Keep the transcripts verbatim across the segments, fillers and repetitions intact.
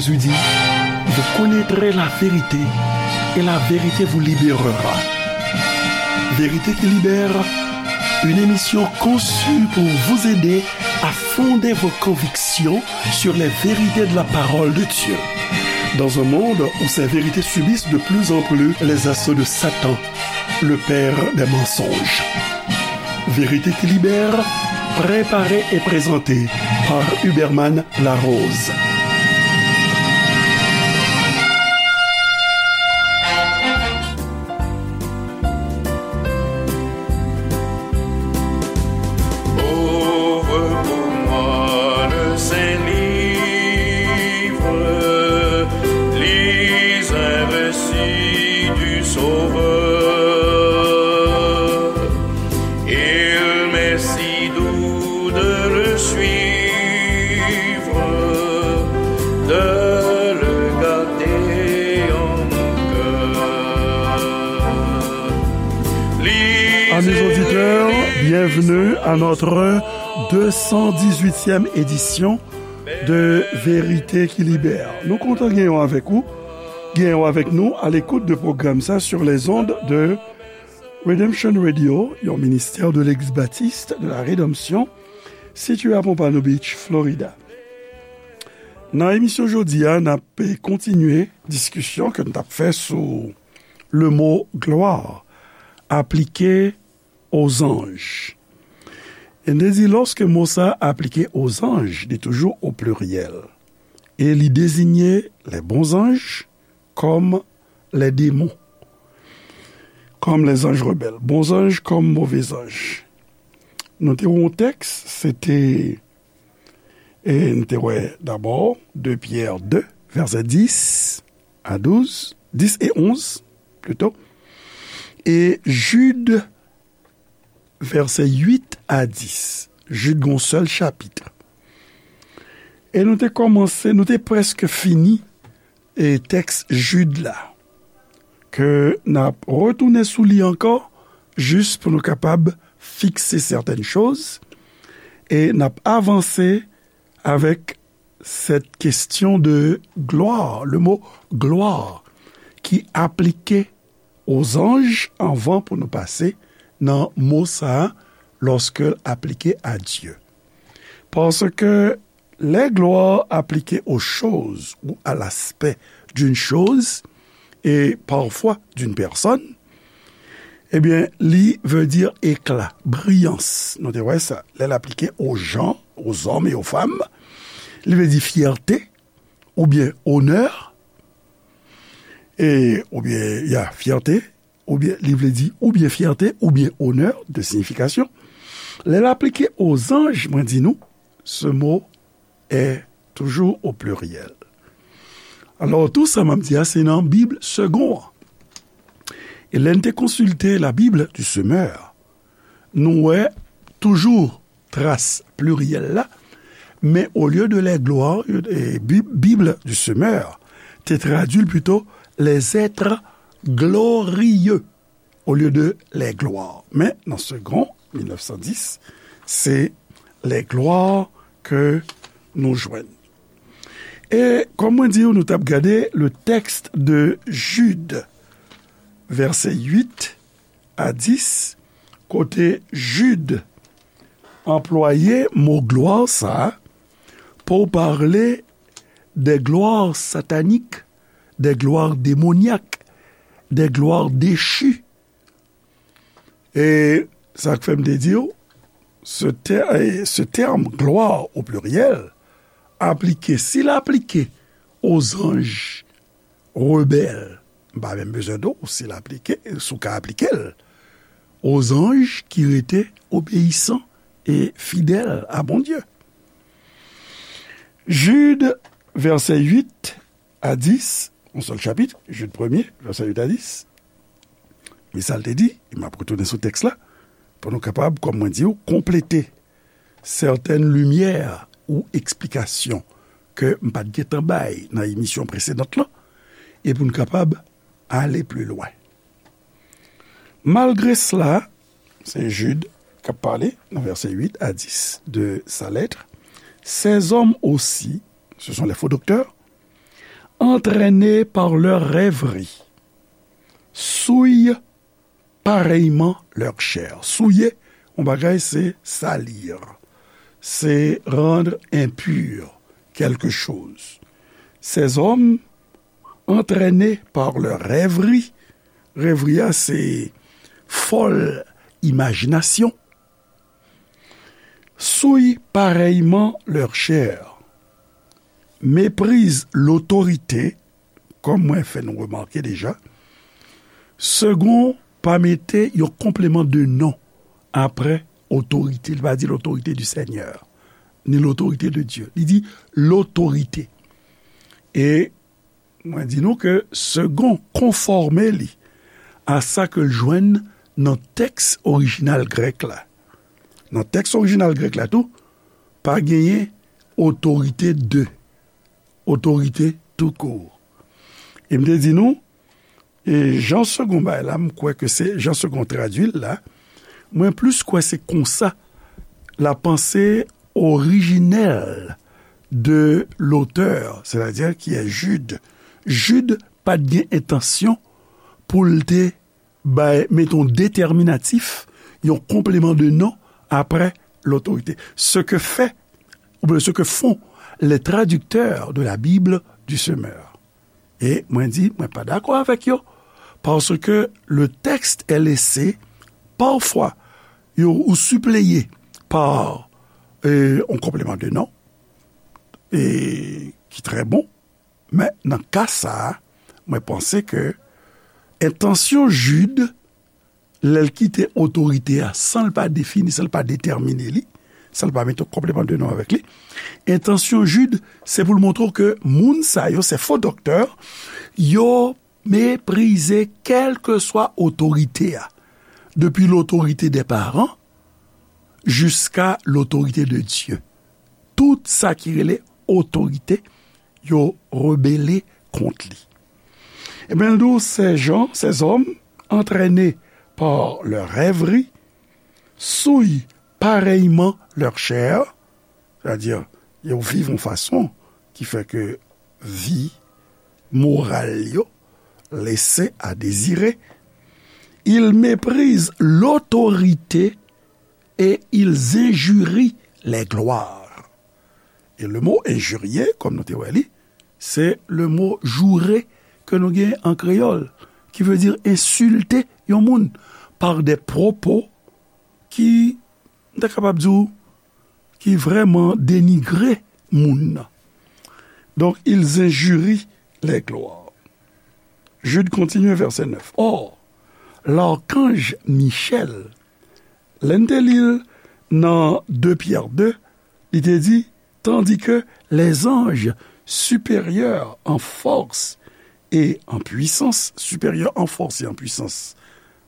Jésus dit, vous connaîtrez la vérité et la vérité vous libérera. Vérité qui libère, une émission conçue pour vous aider à fonder vos convictions sur les vérités de la parole de Dieu. Dans un monde où ces vérités subissent de plus en plus les assauts de Satan, le père des mensonges. Vérité qui libère, préparée et présentée par Huberman Larose. Ouvre pour moi le Saint-Livre, lis un récit du Sauveur. Il m'est si doux de le suivre, de le garder en mon cœur. Amis auditeurs, bienvenue à notre deux cent dix-huitième édition de Vérité qui Libère. Nou kontan genyen w avèk ou, genyen w avèk nou à l'écoute de programme sa sur les ondes de Redemption Radio, yon ministè de l'Eglise Baptiste de la Rédemption, sitiye a Pompano Beach, Florida. Nan emisyon jodi a, n ap kontinye diskisyon ke n t ap fè sou le mot gloire aplike aux anges. E n te di, lòske mo sa aplike aux anges, li toujou o pliryèl. E li deziye les bons anges comme les démons, comme les anges rebelles, bon zanj kòm move zanj. Nou te wè yon tèks, se te, e n te wè dabò de Pyè de, vèsè dis a douz, dis e onz, plito, e Jid, vèsè uit a dis. Jid gen yon sèl chapit. E nou te kòmanse, nou te prèske fini, e tèks Jid la, ke n ap retounen sou li ankò, jis pou nou kapab fikse sètèn choz, e n ap avanse avèk cette question de gloire, le mot gloire, ki aplike aux anges anvan pou nou pase nan mo sa a, lorsque l aplike à Dieu. Parce que les gloires appliquées aux choses ou à l'aspect d'une chose et parfois d'une personne, ebyen, li vle di ekla, briyans. Nou te wè sa. Lè l aplike aux gens, aux hommes et aux femmes, li vle di fyète, oubyen onè, e, oubyen, ya, fyète, oubyen, li vle di oubyen fyète, oubyen onè, de siyifikasyon. Lè l aplike aux anges, mwen di nou, ce mot est toujours au pluriel. Alò, tou sa m ap di a, se nan Bib Segond an. E lè n te konsilte la Bible du Semeur, nou wè toujou tras pliryèl la, men olye de les gloires, e, Bib, Bible du Semeur te tradui l pito les êtres glorieux olye de les gloires. Men nan Segond, mil nèf san dis, se les gloires ke nou jwenn. E kòm mwen di w, nou t ap gade le texte de Jude, vèsè uit a dis, kote Jid anplwaye mo glwa sa a pour parler des gloires sataniques, des gloires démoniaques, des gloires déchues. E sa k fè m te di w, ce ter-, e ce terme gloire au pluriel, aplike, si l aplike aux anges rebelles, m pa menm bezwen di w si l aplike, si w ka aplike l, aux anges ki rete obeyisan e fidèl a Bondye. Jid, vèsè uit a dis, yon sèl chapit, Jid premye, vèsè uit a dis. Men sa l te di, e m ap retounen sou tèks la, pou nou kapab, kòm mwen di w, konplete sètèn limyè ou eksplikasyon ke m pa t gentan bay nan emisyon presedan lan, e pou n kapab ale pli lwen. Malgre cela, se Jid k ap pale nan vèsè uit a dis de sa lettre, ces hommes aussi, ce sont les faux docteurs, entraînés par leurs rêveries, souillent pareillement leur chair. Souiller, yon bagay, se salir. Se rendre impur quelque chose. Ces hommes, entraînés par leurs rêveries, rêverie a, se fòl imajinasyon, souillent pareillement leur chair, méprisent l'autorité, kòm mwen fè nou remake deja, Segond pa mete yon konpleman de non apre otorite. Li pa di l'autorité du Seigneur, ni l'autorité de Dieu. Li di l'autorité. E mwen di nou ke Segond konfòme li a sa ke l jwenn nan tèks orijinal grèk la. Nan tèks orijinal grèk la tou, pa genyen otorite de, otorite tou kour. E m te di nou, e jan Segond bay la, m kwè ke se jan Segond tradui l la, mwen plis kwè se konsa la panse orijinèl de l'auteur, c'est-à-dire qui est Jude. Jude pa t gen entansyon pou l te bay, met yon detèminatif, yon konpleman de non apre l'autorité. Ce que fait, ou bien ce que font les traducteurs de la Bible du Semeur. E mwen di, mwen pa dakò avèk yo, parce que le texte est laissé, parfois, yo, ou sipleye pa, euh, yon konpleman de non, e ki trè bon, men nan ka sa a, mwen panse ke entansyon Jid, lè l kite otorite a, san l pa defini, san l pa detèmine li, san l pa mete yon konpleman de non avèk li, entansyon Jid, se pou l montre w ke moun sa yo, se fo doktè, yo meprize kèlkeswa otorite a, depi l'autorité des parents jiska l'autorité de Dieu. Tout sa ki rele otorite, yo rebele kont li. Ebyen, l di w, ces gens, ces hommes, entraînés par leurs rêveries, souillent pareillement leur chair, c'est-à-dire, yo viv yon fason ki fè ke vi moral yo lese a dezire. Ils méprisent l'autorité et ils injurient les gloires. E le mo injurier, kòm nou te wè li, se le mo jourer ke nou gen an kreyòl, ki vle di ensilte yon moun par des propos ki, m ta kapab di w, ki vrèman denigre moun nan. Donc, ils injurient les gloires. Jude continue, verset neuf. Or, l'archange Michel, lè n te li l nan de Pyè de, li te di, tandis que les anges supérieurs en force et en puissance, supérieurs en force et en puissance,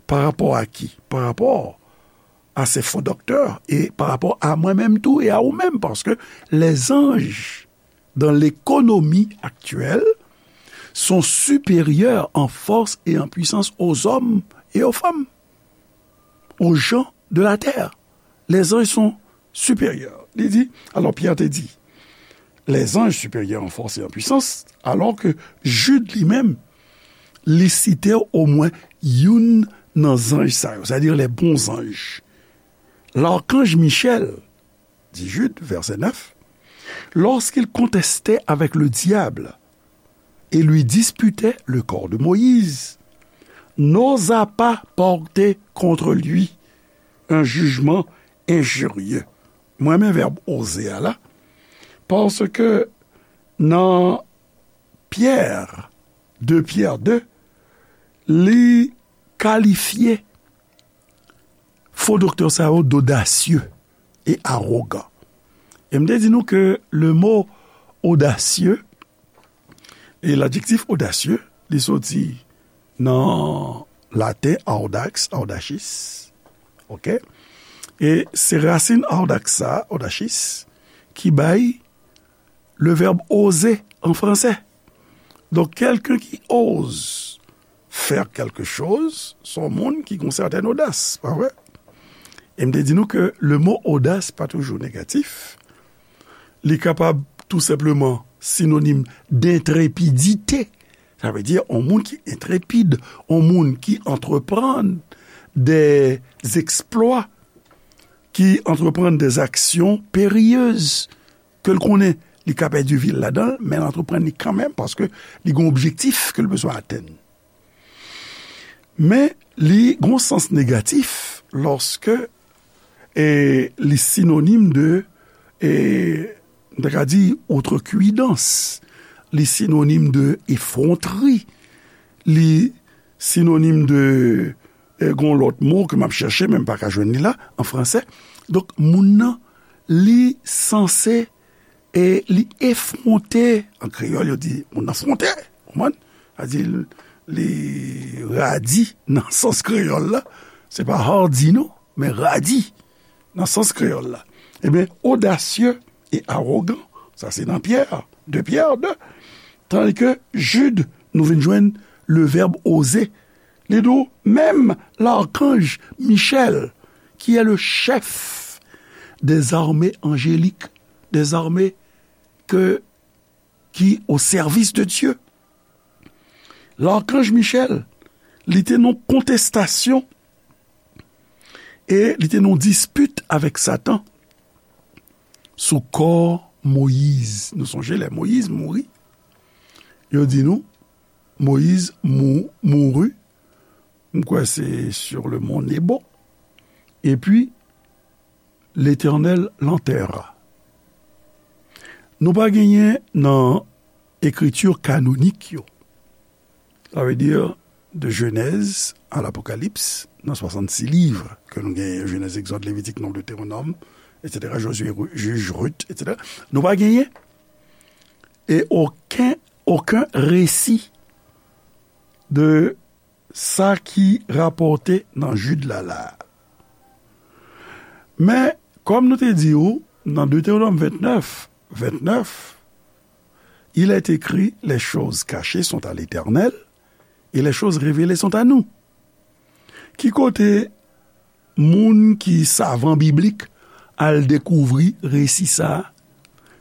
pa rapò a ki? Pa rapò a se fo doktè e pa rapò a mwen menm tou e a ou menm, paske les anges dans l'économie actuelle sont supérieurs en force et en puissance aux hommes et aux femmes, aux gens de la terre. Les anges sont supérieurs. Li di, alò Pyè te di, les anges supérieurs en force et en puissance, alors que Jude li menm, li site omwen youn nan zanj sa yo, c'est-à-dire les bons anges. L'archange Michel, dit Jude, verset neuf, lorsqu'il contestait avec le diable et lui disputait le corps de Moïse, n'osa pas porter contre lui un jugement injurieux. Mwen renmen vèb oze a la, paske nan Pyè, de Pyè de, li kalifye fo doktè sa yo d'audacieux et arrogants. E m te di nou ke le mot audacieux, e l'adjektif audacieux, li soti nan laten audax, audacis. Oke? E se rasin audax sa, audacis, ki bay le verbe oser en français. Donk, quelqu'un qui ose faire quelque chose, se yon moun ki gen yon sètèn odas, pa vre? E m te di nou ke le mot audace pa toujou negatif. Li kapab tou senpleman sinonim d'entrepidite. Sa vle di yon moun ki entrepid, yon moun ki antreprann des exploits, ki antreprann des actions périlleuses, ke l konnen li ka pèdi vi l ladan l, men l antreprann li kanmenm paske li gen yon objektif ke l bezwen atenn. Men li gen yon sans negatif lòske e, li sinonim de, e, m ta ka di, outrecuidance, li sinonim de effronterie, li sinonim de, e, gon lòt mo ke m ap chèche, men m pa ka jwenn li la, an fransè. Donk, moun nan, li sanse e li efwonte, an kreyòl, yo di, moun nan fwonte, konprann? Sa di, li radi nan sans kreyòl la. Se pa hardi, non, men radi nan sans kreyòl la. Ebyen, odasye e awogan, sa se nan Pyè, de Pyè de. Tandis ke Jid, nou vin jwenn le verbe oser. Li di w, menm l'archange Michel, qui est le chef des armées angéliques, des armées que, qui au service de Dieu. L'archange Michel, li te nan kontestasyon e li te nan dispit avèk Satan sou kò Moyiz. Nou sonje lè Moyiz mouri, yo di nou, Moyiz mou-, mouri, m kwè se sur le mont Nebo, epi Letènèl l'enterra. Nou pa genyen nan ekriti kanonik yo, sa vle di de Jenèz a Lapokalips, nan swasannsis liv ke nou genyen, Jenèz, Egzòd, Levitik, Nonb, Detewonòm, etsetera, Jozye, Ru-, Jij, Rit, etsetera. Nou pa genyen e okenn, okenn resi de sa ki rapòte nan Jid la la. Men, kòm nou te di w, nan Detewonòm vennèf, vennèf, il est écrit, les choses cachées sont à l'Éternel, et les choses révélées sont à nous. Ki kote moun ki savan biblik al dekouvri resi sa a?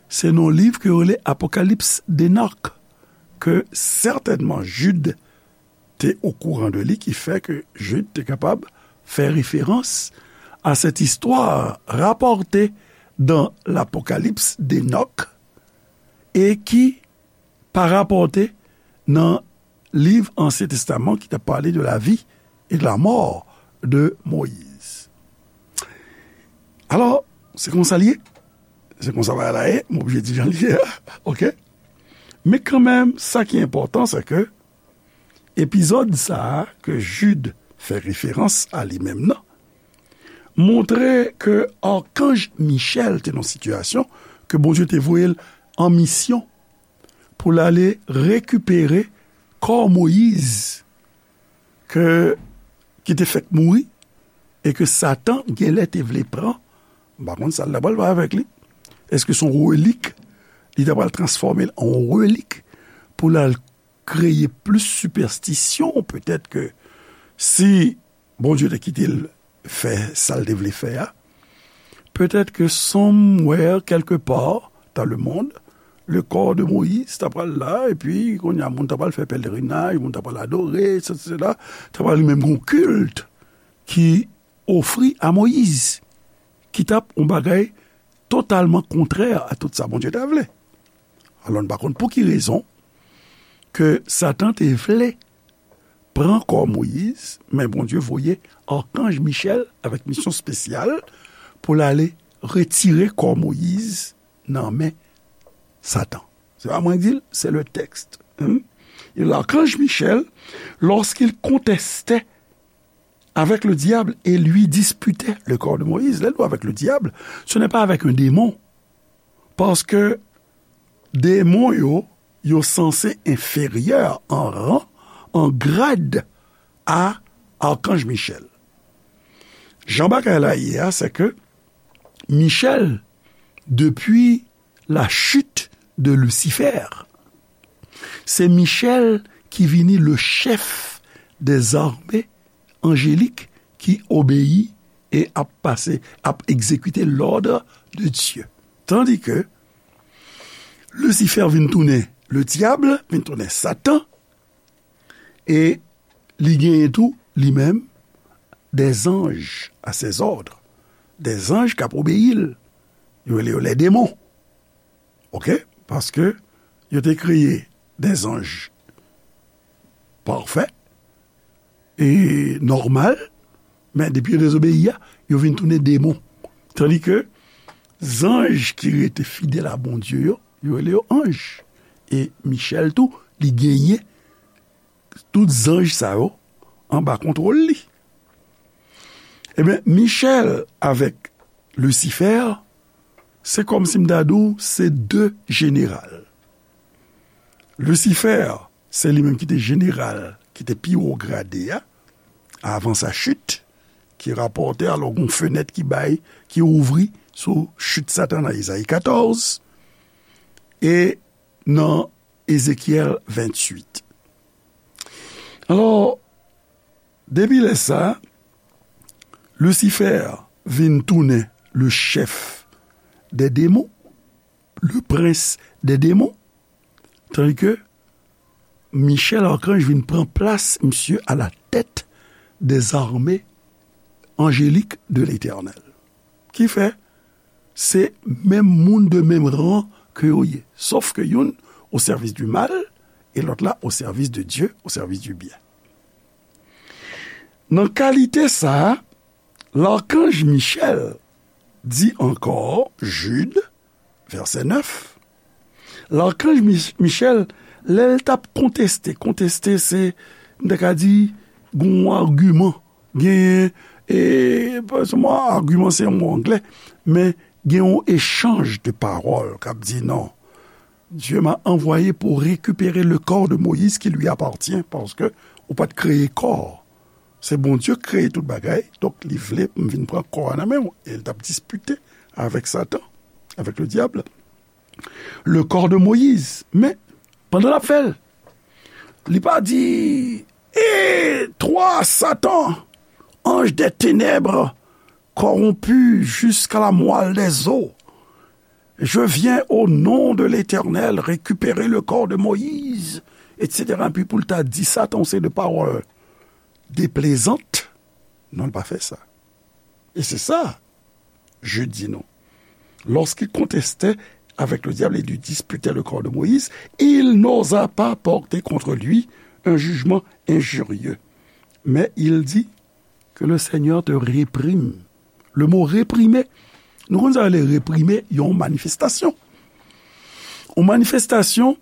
Se nan liv ke yo rele Apokalips de Nòk, ke sètènman Jid te okouran de li, ki fè ke Jid te kapab fè referans a cette histoire rapportée dans l'Apocalypse d'Enoch et qui pa rapòte nan liv Ansyen Testaman ki t ap pale de la vie et de la mort de Moïse. Alò, se konsa l ye. Se konsa bagay la ye. M oblije di jan l ye a. Oke? Men kanmenm, sa ki enpòtan, se ke epizòd sa a ke Jid fè referans a li menm nan, montre ke akanj Michèl te nan sitiyasyon ke Bondye te voye l an misyon pou l ale rekipere kò Moyiz ke, ki te fèk mouri e ke Satan genlè te vle pran. M pa konn sa l ta pral fè avèk li. Èske se yon relik? Li ta pral transfòme l an yon relik pou l al kreye plis sipèstisyon, petèt ke si Bondye te kite l fè sa l te vle fè a, petèt ke somewhere, quelque part dans le monde, le corps de Moïse ta pral la, epi kounye a moun ta pral fè pèlerinaj, moun ta pral adore, et cetera, ta pral menm gon kilt ki ofri a Moyiz, ki t ap yon bagay totalman kontrè a tout sa Bondye ta vle. Alò, n pa konn pou ki rezon ke Satan te vle pran kò Moyiz, men Bondye voye akanj Michèl avèk misyon espesyal pou l ale retire kò Moyiz nan men Satan. Se pa mwen ki di l, se le texte. Hmm? Et l'archange Michel, lorsqu'il contestait avec le diable et lui disputait le corps de Moïse, lè l di avec le diable, ce n'est pas avec un démon. Paske demon yo, yo sanse enferyè an ran, an grad a akanj Michèl. Jan bagay la ye a, se ke Michèl, depi la chute de Lucifer, se Michèl ki vini le chef des armées angéliques ki obeyi e ap pase, ap egzekite l'ordre de Dieu. Tandis que Lisifè vin tounen le dyab, vin tounen Satan, e li genyen tou, li menm, des anges à ses ordres, des anges k ap obeyi l. Yo rele yo les démons. Oke? Paske yo te kreye des anges parfaits e nòmal, men depi yo dezobeyi a, yo vin tounen demon. Tandi ke zanj ki rete fidèl a Bondye yo, yo rele yo anj. E Michèl tou, li genyen tout zanj sa yo anba kontwòl li. Ebyen, Michèl avèk Lisifè, se kòmsi m ta di w, se de jeneral. Lisifè, se li menm ki te jeneral, ki te pi wo grade a, avan sa chit, ki rapòte, alò, gon fenèt ki bay, ki ouvri sou chit Satan nan Ezayi katòz, e nan Ezekyèl venntuit. Alò, depi lè sa, Lisifè vin tounen le chèf dè demon, le prens dè demon, tandi ke Michèl akanj vin pran plas misye a la tèt dè zame anjelik de Letènèl. Ki fè, se menm moun de menm ran ke yo ye. Sòf ke youn o sèvis di mal e lòt la o sèvis de Dye, o sèvis di byen. Nan kalite sa a, lakanj Michèl di ankò, Jid, vèsè nèf, lakanj Mich-, Michèl, lè l t ap konteste, konteste se, m ta ka di, gon agiman, genyen, e, pa sèlman agiman se yon mo anglè, men gen yon echanj de pawòl k ap di non. Dieu m'a envoyé pour récupérer le corps de Moïse qui lui appartient, paske ou pa t kreye kò. Se Bondye k kreye tout bagay, donk li vle pou m vin pran kò a nan men w. E l t ap dispite avèk Satan, avèk le diable, le corps de Moïse. Men, pandan l ap fè l, li pa di, et toi, Satan, ange des ténèbres, corrompu jusqu'à la moelle des os, je viens au nom de l'Éternel récupérer le corps de Moïse, et cetera. Epi pou l ta di Satan se de pawòl deplezant, non, l pa fè sa. E se sa, Jid di nou. Lorsqu'il contestait avec le diable et lui disputait le corps de Moïse, il n'osa pas porter contre lui un jugement injurieux. Mais il dit, que le Seigneur te réprime. Le mot réprimer, nou konn sa rele reprime, yon manifestasyon. Yon manifestasyon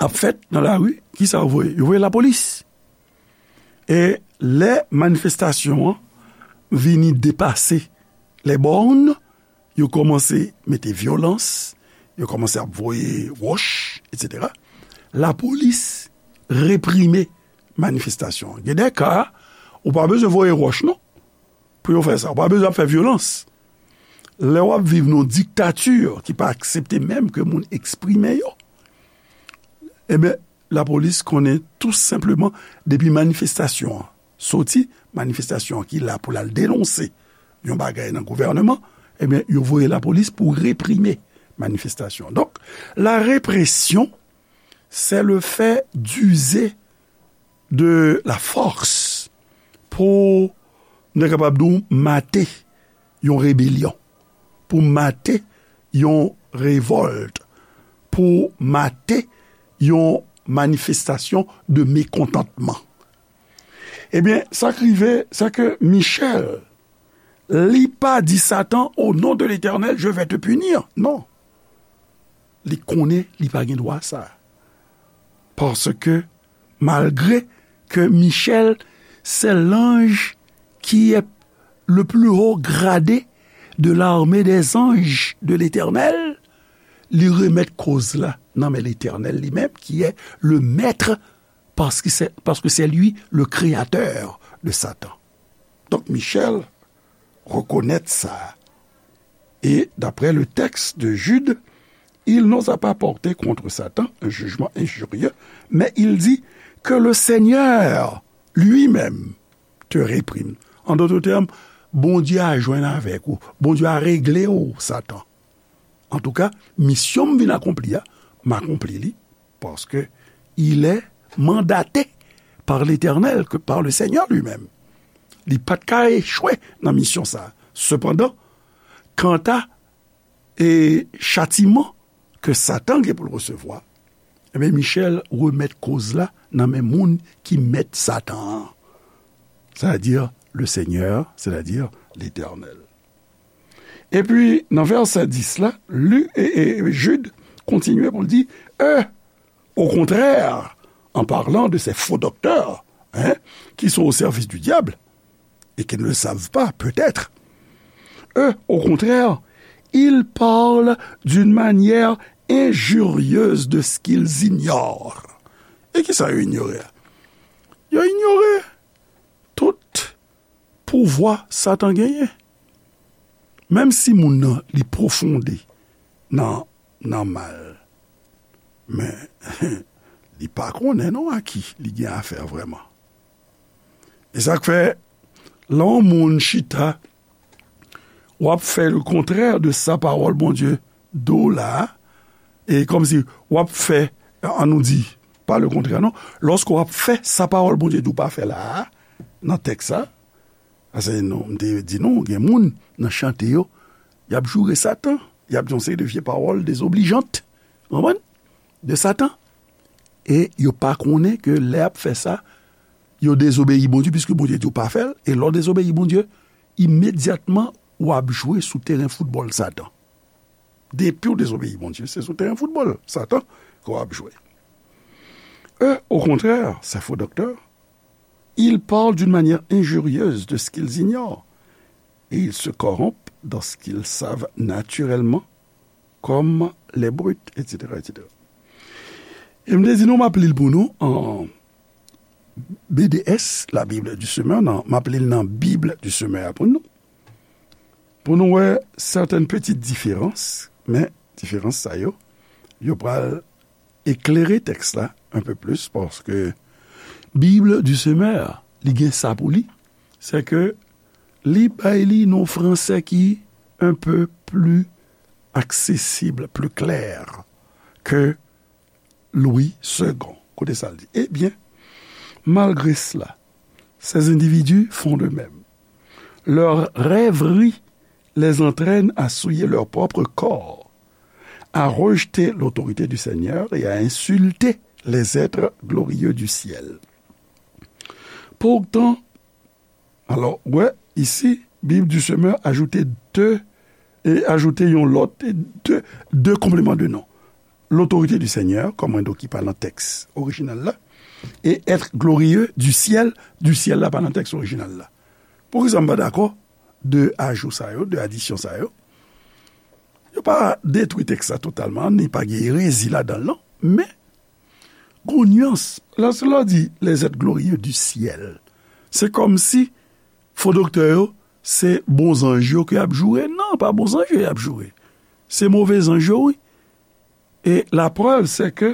ap fèt nan lari, kisa yo voye? Yo voye lapolis. E lè manifestasyon an vini depase les bornes, yo kòmanse mete vyolans, yo kòmanse ap voye wòch, et cetera. Lapolis reprime manifestasyon an. Gen de ka, ou pa bezwen voye wòch, non, pou yo fè sa. Ou pa bezwen ap fè vyolans. Lè w ap viv nan yon diktati ki pa aksepte menm ke moun eksprime yo, ebyen, lapolis konnen tou senpleman depi manifestasyon an soti, manifestasyon an ki la pou l al denonse yon bagay nan gouvèneman, ebyen, yo voye lapolis pou reprime manifestasyon. Donk, la répression, c'est le fait d'user de la force pou, nou ta kapab di w, mate yon rebelyon, pou mate yon revòlt, pou mate yon manifestasyon de mekontantman. Ebyen, sa k rive, se ke Michèl, li pa di Satan, au nom de l'Éternel, je vais te punir. Non. Li konnen li pa gen dwa sa. Paske, malgre ke Michèl, se l'ange qui est le plus haut gradé de l'armée des anges de l'Éternel, li remèt koz la nan men Letènèl li menm, ki è le mèt, paske se, paske se li le kreyatè de Satan. Donk, Michèl rekonèt sa. Et d'après le texte de Jude, il n'osa pas porter contre Satan un jugement injurieux, mais il dit que le Seigneur lui-même te réprime. En d'autres termes, Bondye a jwenn avèk ou. Bondye a regle w, Satan. Antouka, misyon m vin akonpli a, m akonpli li, paske il est mandaté par l'Éternel, que par le Seigneur lui-même. Li pa t ka echwe nan misyon sa a. Sepandan, kanta e chatiman ke Satan gen pou l resevwa, ebyen, Michèl remèt koz la nan men moun ki mèt Satan an, sètadi le Seigneur, sètadi Letènèl. Epi, nan vèsè dis la, Lu, e, e, Jid kontinye pou l di, eux, au contraire, en parlant de ces faux docteurs, hein, qui sont au service du diable, et qui ne le savent pas, peut-être. Eux, au contraire, ils parlent d'une manière injurieuse de ce qu'ils ignorent. E kisa yo inyore a? Yo inyore tout pouvwa Satan genyen. Menm si moun nan li pwofonde nan, nan mal, men li pa konnen non a ki li gen afè vrèman. E sa k fè, lè yon moun chita, w ap fè le contraire de sa pawòl Bondye di w la a, e kòmsi w ap fè, an nou di, pa le contraire non, lòske w ap fè sa pawòl Bondye di w pa fè la a, nan tèks sa, paske nou, m te di nou, gen moun nan chante yo, y ap joure Satan, y ap di yon seri de vye pawòl dezoblijan, konprann? De Satan. E yo pa konnen ke lè y ap fè sa, yo dezobeyi Bondye, piske Bondye di w pa fè l, e lè w dezobeyi Bondye, imedyatman, w ap jwe sou teren foutbòl Satan. Depi w dezobeyi Bondye, se sou teren foutbòl Satan ke w ap jwe. Eux, au contraire, ces faux docteurs, ils parlent d'une manière injurieuse de ce qu'ils ignorent, et ils se corrompent dans ce qu'ils savent naturellement, comme les brutes, et cetera, et cetera. E m te di nou, m ap li l pou nou an B D S, la Bible du Semeur, nan, m ap li l nan Bib di Semè a pou nou. Pou nou wè sèten pitit diferans, men diferans sa yo, yo pral eklere tèks la un peu plus, paske Bib di Semè, li gen sa pou li, se ke li bay li nan fransè ki un peu plus accessible, plus clair ke Louis Segond. Koute sa l di. Eh bien, malgré cela, ces individus font de même. Leurs rêveries les entraînent à souiller leur propre corps, à rejeter l'autorité du Seigneur et à insulter les êtres glorieux du ciel. Pourtant, alò, wè, isi, Bib di Semè ajoute de, e ajoute yon lòt, e de, de konpleman de non. L'autorité du Seigneur, kòm mwen di w ki pa nan tèks orijinal la, e être glorieux du ciel, du ciel la pa nan tèks orijinal la. Poukisa m pa dakò de ajou sa yo, de adisyon sa yo? Yo pa detwi tèks la totalman, ni pa gen erezi ladan l non, men gon nyans. Lòske lè w di les êtres glorieux du ciel, se kòmsi fo doktè yo, se bon zanj yo ke y ap joure. Non, pa bon zanj yo y ap joure. Se move zanj yo, wi. E laprèv, se ke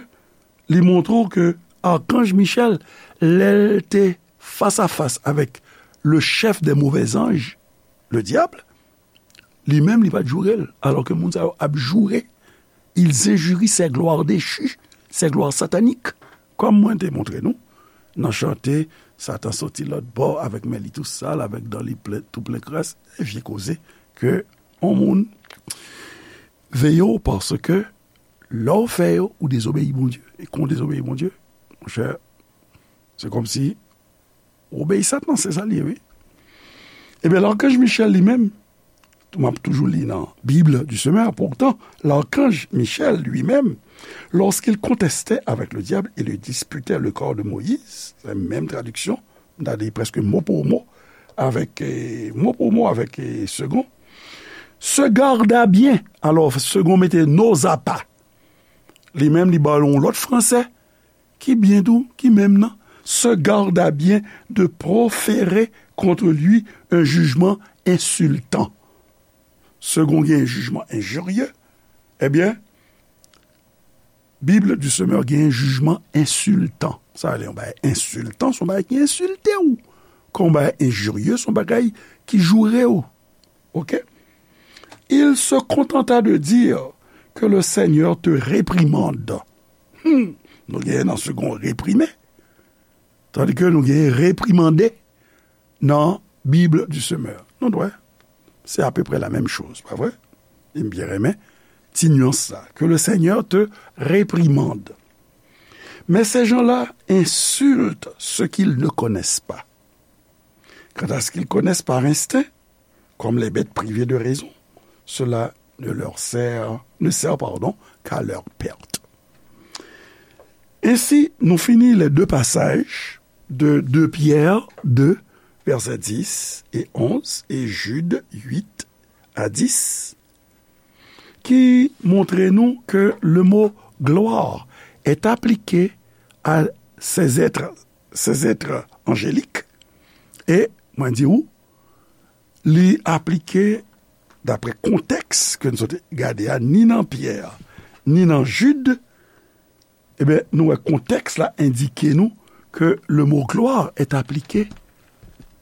li montre w ke Arkanj Michèl, lè l te fas a fas avèk le chef des mauvais anges, le diable, li menm, li pa t joure l, alò ke moun sa yo ap joure. Ils injurient ces gloires déchues, ces gloires sataniques. Kòm mwen te montre nou, nan chante, Satan soti lòt bò avèk men li tou sal, avèk dan li plen, tou plen kras, e vye koze ke yon moun veye w, paske lè w fè yo, ou dezobeyi Bondye. E kan w dezobeyi Bondye, monchè, se kòmsi ou obeyi Satan, se sa l ye, wi. Ebyen, l'archange Michel li menm, m ap toujou li nan Bible du Semeur, pourtant, l'archange Michel lui-même, lorsqu'il contestait avec le diable et lui disputait le corps de Moïse, se menm tradiksyon, m ta di prèske mo pou mo, avèk, eh, mo pou mo avèk, eh, Segond, se garda bien, alò, Segond mete n'osa pas. Li menm, li ba l yon lòt fransè, ki byen tou, ki menm nan, se garda bien de proférer contre lui un jugement insultant. Segond gen jijman enjirye, ebyen, Bible du Semeur gen jijman ensiltan. Sa vle yon bagay ensiltan, se yon bagay ki ensilte w. Kan yon bagay enjirye, se yon bagay ki joure w. Ok? Il se contenta de dire que le Seigneur te réprimande. Hmm, nou genyen nan Segond Reprime, tandis que nou genyen reprimande nan Bible du Semeur. Nou wè, c'est à peu près la même chose, pa vre? E m byen renmen ti nuance sa, que le Seigneur te réprimande. Mais ces gens-là insultent ce qu'ils ne connaissent pas. Quant à ce qu'ils connaissent par instinct, comme les bêtes privées de raison, cela ne leur sert, ne sert, pardon, qu'à leur perte. Ainsi, nous finissons les deux passages de deux Pierre deux, versets dix et onze, et Jude huit à dix, qui montre nous que le mot gloire est appliqué à ces êtres, ces êtres angéliques. E mwen di ou, li aplike daprè kontèks ke nou sot gade a, ni nan Pyè, ni nan Jid, ebyen, nou wè kontèks la endike nou que le mot gloire est appliqué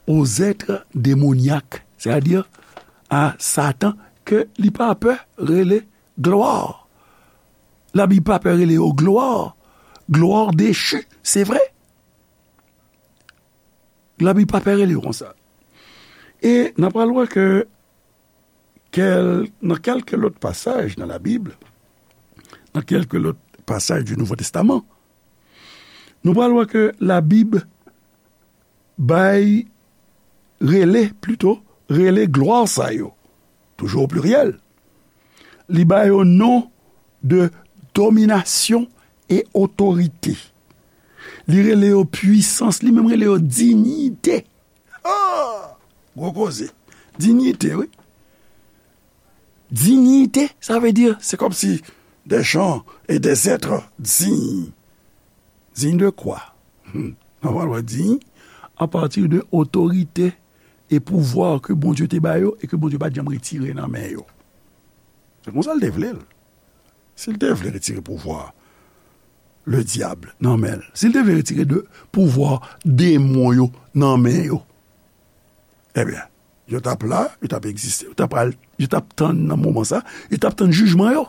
aux êtres démoniaques, c'est-à-dire à Satan, ke li pa pè rele glwa. Labib pa pè rele yo glwa. Glwa dechi, se vre. Labib pa pè rele yo konsa. E n ap pral wè ke kèl, nan kèlke lòt pasaj nan Labib, nan kèlke lòt pasaj du Nouveau Testament, nou pral wè ke Labib bay, rele, plito, rele glwa sa yo, toujou o pliryèl, li ba yo non de dominasyon e otorite. Li rele yo pwisans, li menm rele yo diyite. Ah! Gwo koze. Diyite, wi. Diyite, sa vle di, c'est comme si des gens et des êtres dignes. Digne de quoi? Hmm. N ap pral wè diy a pati de otorite e pouvwa ke Bondye te ba yo e ke Bondye pa t janm retire nan men yo. Se konsa l te vle l. Si l te vle retire pouvwa ledyab nan men l, si l te vle retire de pouvwa demon yo nan men yo, ebyen, yo t ap la, yo t ap egziste, yo t ap al, yo t ap tann nan moman sa, yo t ap tann jijman yo.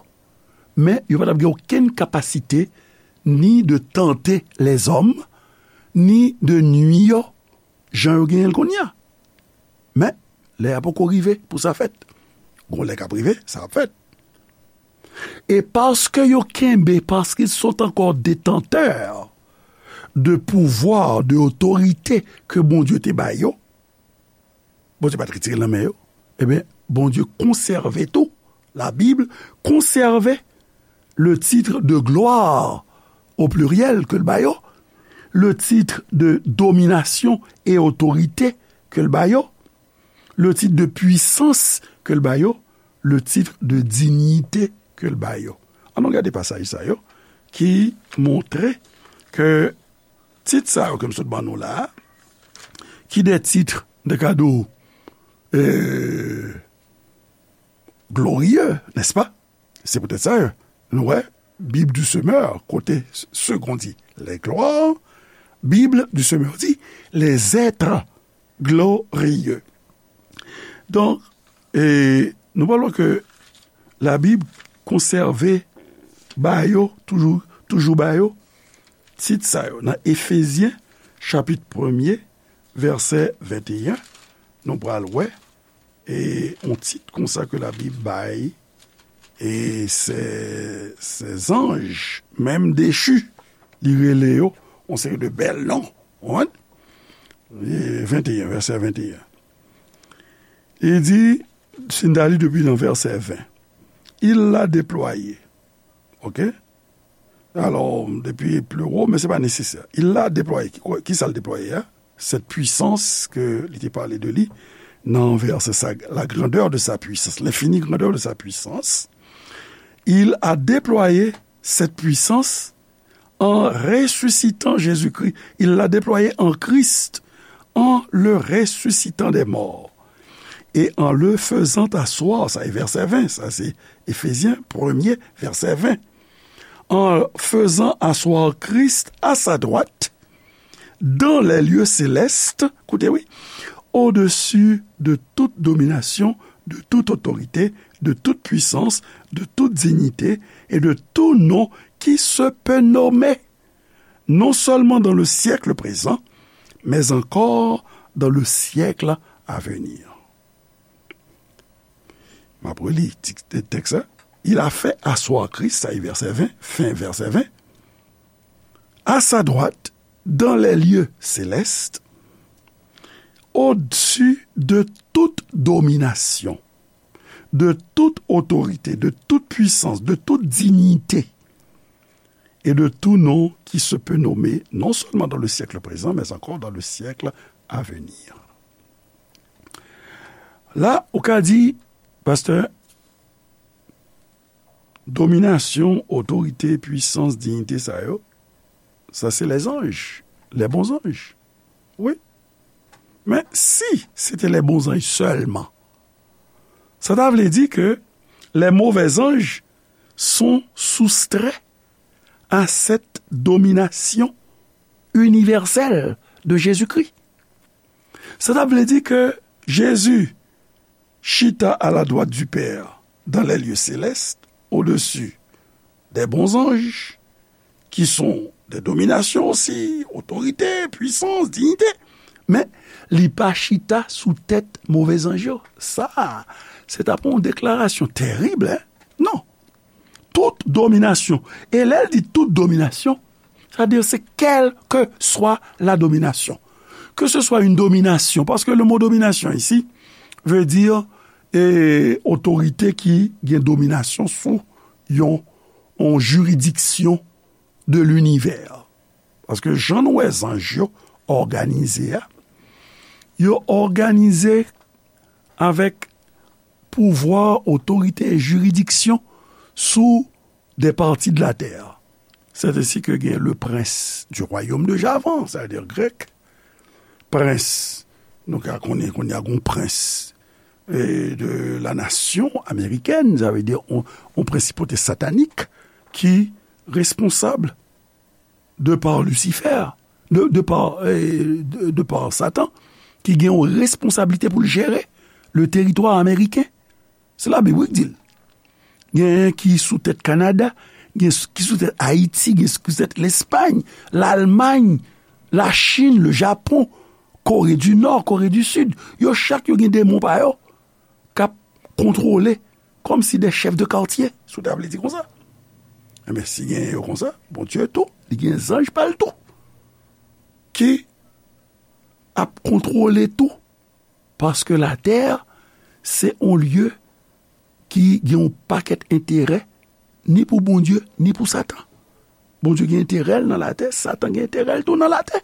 Men yo pa t ap gen okenn kapasite ni de tante lèzòm, ni de nui yo, jan yo genyen l kounye a. Men, lè a poko rive pou sa fèt. Gon lè k ap rive, sa ap fèt. E paske yo kenbe, parce qu'ils sont encore détenteurs de pouvoir, de otorite ke Bondye te ba yo, Bondye pa t retire l nan men yo. Ebyen, Bondye konsève tou. La Bible conserve le titre de gloire, au pluriel, ke l ba yo, le titre de domination et autorité ke l ba yo, le titre de puissance ke l ba yo, le titre de dignité ke l ba yo. Ann nou gade pasaj sa yo ki montre ke tit sa yo ke m sot ban nou la a, ki de tit de kado, euh, glorieux, n'est-ce pas? Se poutèt sa, nou wè, Bible du Semeur, kote Segond di les gloires, Bible du Semeur di les êtres glorieux. Donk, e, nou pral wè ke Labib konsève ba yo, toujou, toujou ba yo, tit sa yo. Nan Efezyen, chapit premye, vèsè venteyen, nou pral wè, e, yon tit konsa ke Labib bay, e, ces, ces anges, menm dechi, li rele yo yon seri de bèl non, ou konprann? E, venteyen, vèsè venteyen. Li di, si n ta li depi nan vèsè ven, il l'a déployé. Oke? Alò, depi pli wo, men se pa nesesè. Il l'a déployé. Ki, ki sa l deplwaye a? Cette puissance ke li te pale de li nan vèsè sa, la grandeur de sa puissance, l'infinie grandeur de sa puissance. Il a déployé cette puissance en ressuscitant Jésus-Christ. Il l'a déployé en Christ, en le ressuscitant des morts. Et en le faisant asseoir, sa e vèsè ven, sa se Efezyen premye, vèsè ven. En faisant asseoir Christ à sa droite, dans les lieux célestes, koute wi, au-dessus de toute domination, de toute autorité, de toute puissance, de toute dignité et de tout nom qui se peut nommer, non seulement dans le siècle présent, mais encore dans le siècle à venir. M ap reli ti tèks la. Il a fait asseoir Christ, sa e vèsè ven, fen vèsè ven, à sa droite dans les lieux célestes, au-dessus de toute domination, de toute autorité, de toute puissance, de toute dignité et de tout nom qui se peut nommer, non seulement dans le siècle présent, mais encore dans le siècle à venir. La, ou ka di, pastè, dominasyon, otorite, pwisans, diyite sa yo, sa se lèzanj, les bons anges. Wi. Men si se te les bons anges sèlman, sa ta vle di ke les mauvais anges sont soustraits à cette domination universelle de Jésus-Christ. Sa ta vle di ke Jezi chita à la droite du Père dans les lieux célestes, au-dessus des bons anges, qui sont des dominations aussi, autorité, puissance, dignité. Men li pa chita sou tèt move zanj yo. Sa, se t ap yon deklarasyon terib, en? Non. Tout domination. E lè l di tout domination, sa vle di se quelle que soit la domination. Que ce soit une domination, parce que le mot domination ici veut dire, eh, otorite ki gen dominasyon sou yon, yon jiridiksyon de linivè. Paske jan nou wè zanj yo òganize a, yo òganize avèk pouvwa, otorite e jiridiksyon sou des parties de la terre. C'est ainsi que gen le prince du royaume de Javan, sa vle di grèk. Prens, nou ka konnen kounye a gon prens, eh, de la nation américaine, sa vle di on, on prensipote satanik ki responsab de par Lucifer, de, de par, eh, de, de par Satan, ki gen yon responsablite pou l jere le teritwa ameriken. Se Labib wi ki di l. Gen ki sou tèt Kanada, gen ki sou tèt Ayiti, gen ki sou tèt Lespay, Lalmay, Lachin, le Japon, Kore di Nò, Kore di Sid. Yo chak yo gen demon pa yo k ap kontwole kòmsi de chèf de katye, si w ta vle di konsa. Enben, si gen yo konsa, Bondye tou, li gen zanj pa l tou ki ap kontwole tou. Paske latè, se yon lye ki gen yon pakèt enterè, ni pou Bondye, ni pou Satan. Bondye gen enterè l nan latè, Satan gen enterè l tou nan latè.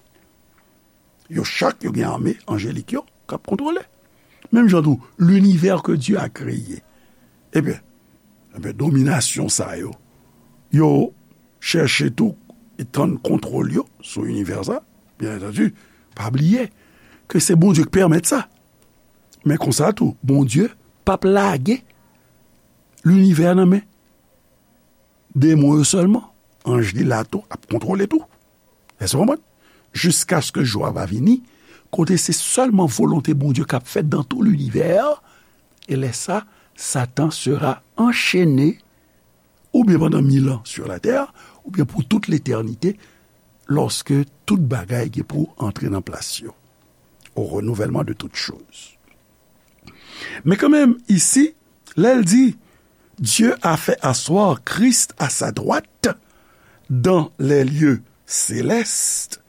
Yo chak, yo gen ame anjelik yo k ap kontwole. Menm jan tou, l'univers que Dieu a créé. Ebyen, ebyen, dominasyon sa yo, yo chèche tou etann kontwòl yo sou inivè sa. Byen antandi, pa bliye ke se Bondye ki pèmèt sa. Men konsa tou, Bondye p ap lage linivè nan men demon yo sèlman. Anj li la tou, ap kontwole tou. Èske w konprann? Jiskaske jou a va vini, kote se sèlman volonte Bondye k ap fèt dans tout l'univers, e lè sa, Satan sera enchene, oubyen pandan mil an sur la terre, oubyen pou tout letènite, lòske tout bagay gen pou antre nan plas yo, au renouvellement de toutes choses. Men kanmenm, isi, lè l di, Dieu a fait asseoir Christ à sa droite dans les lieux célestes,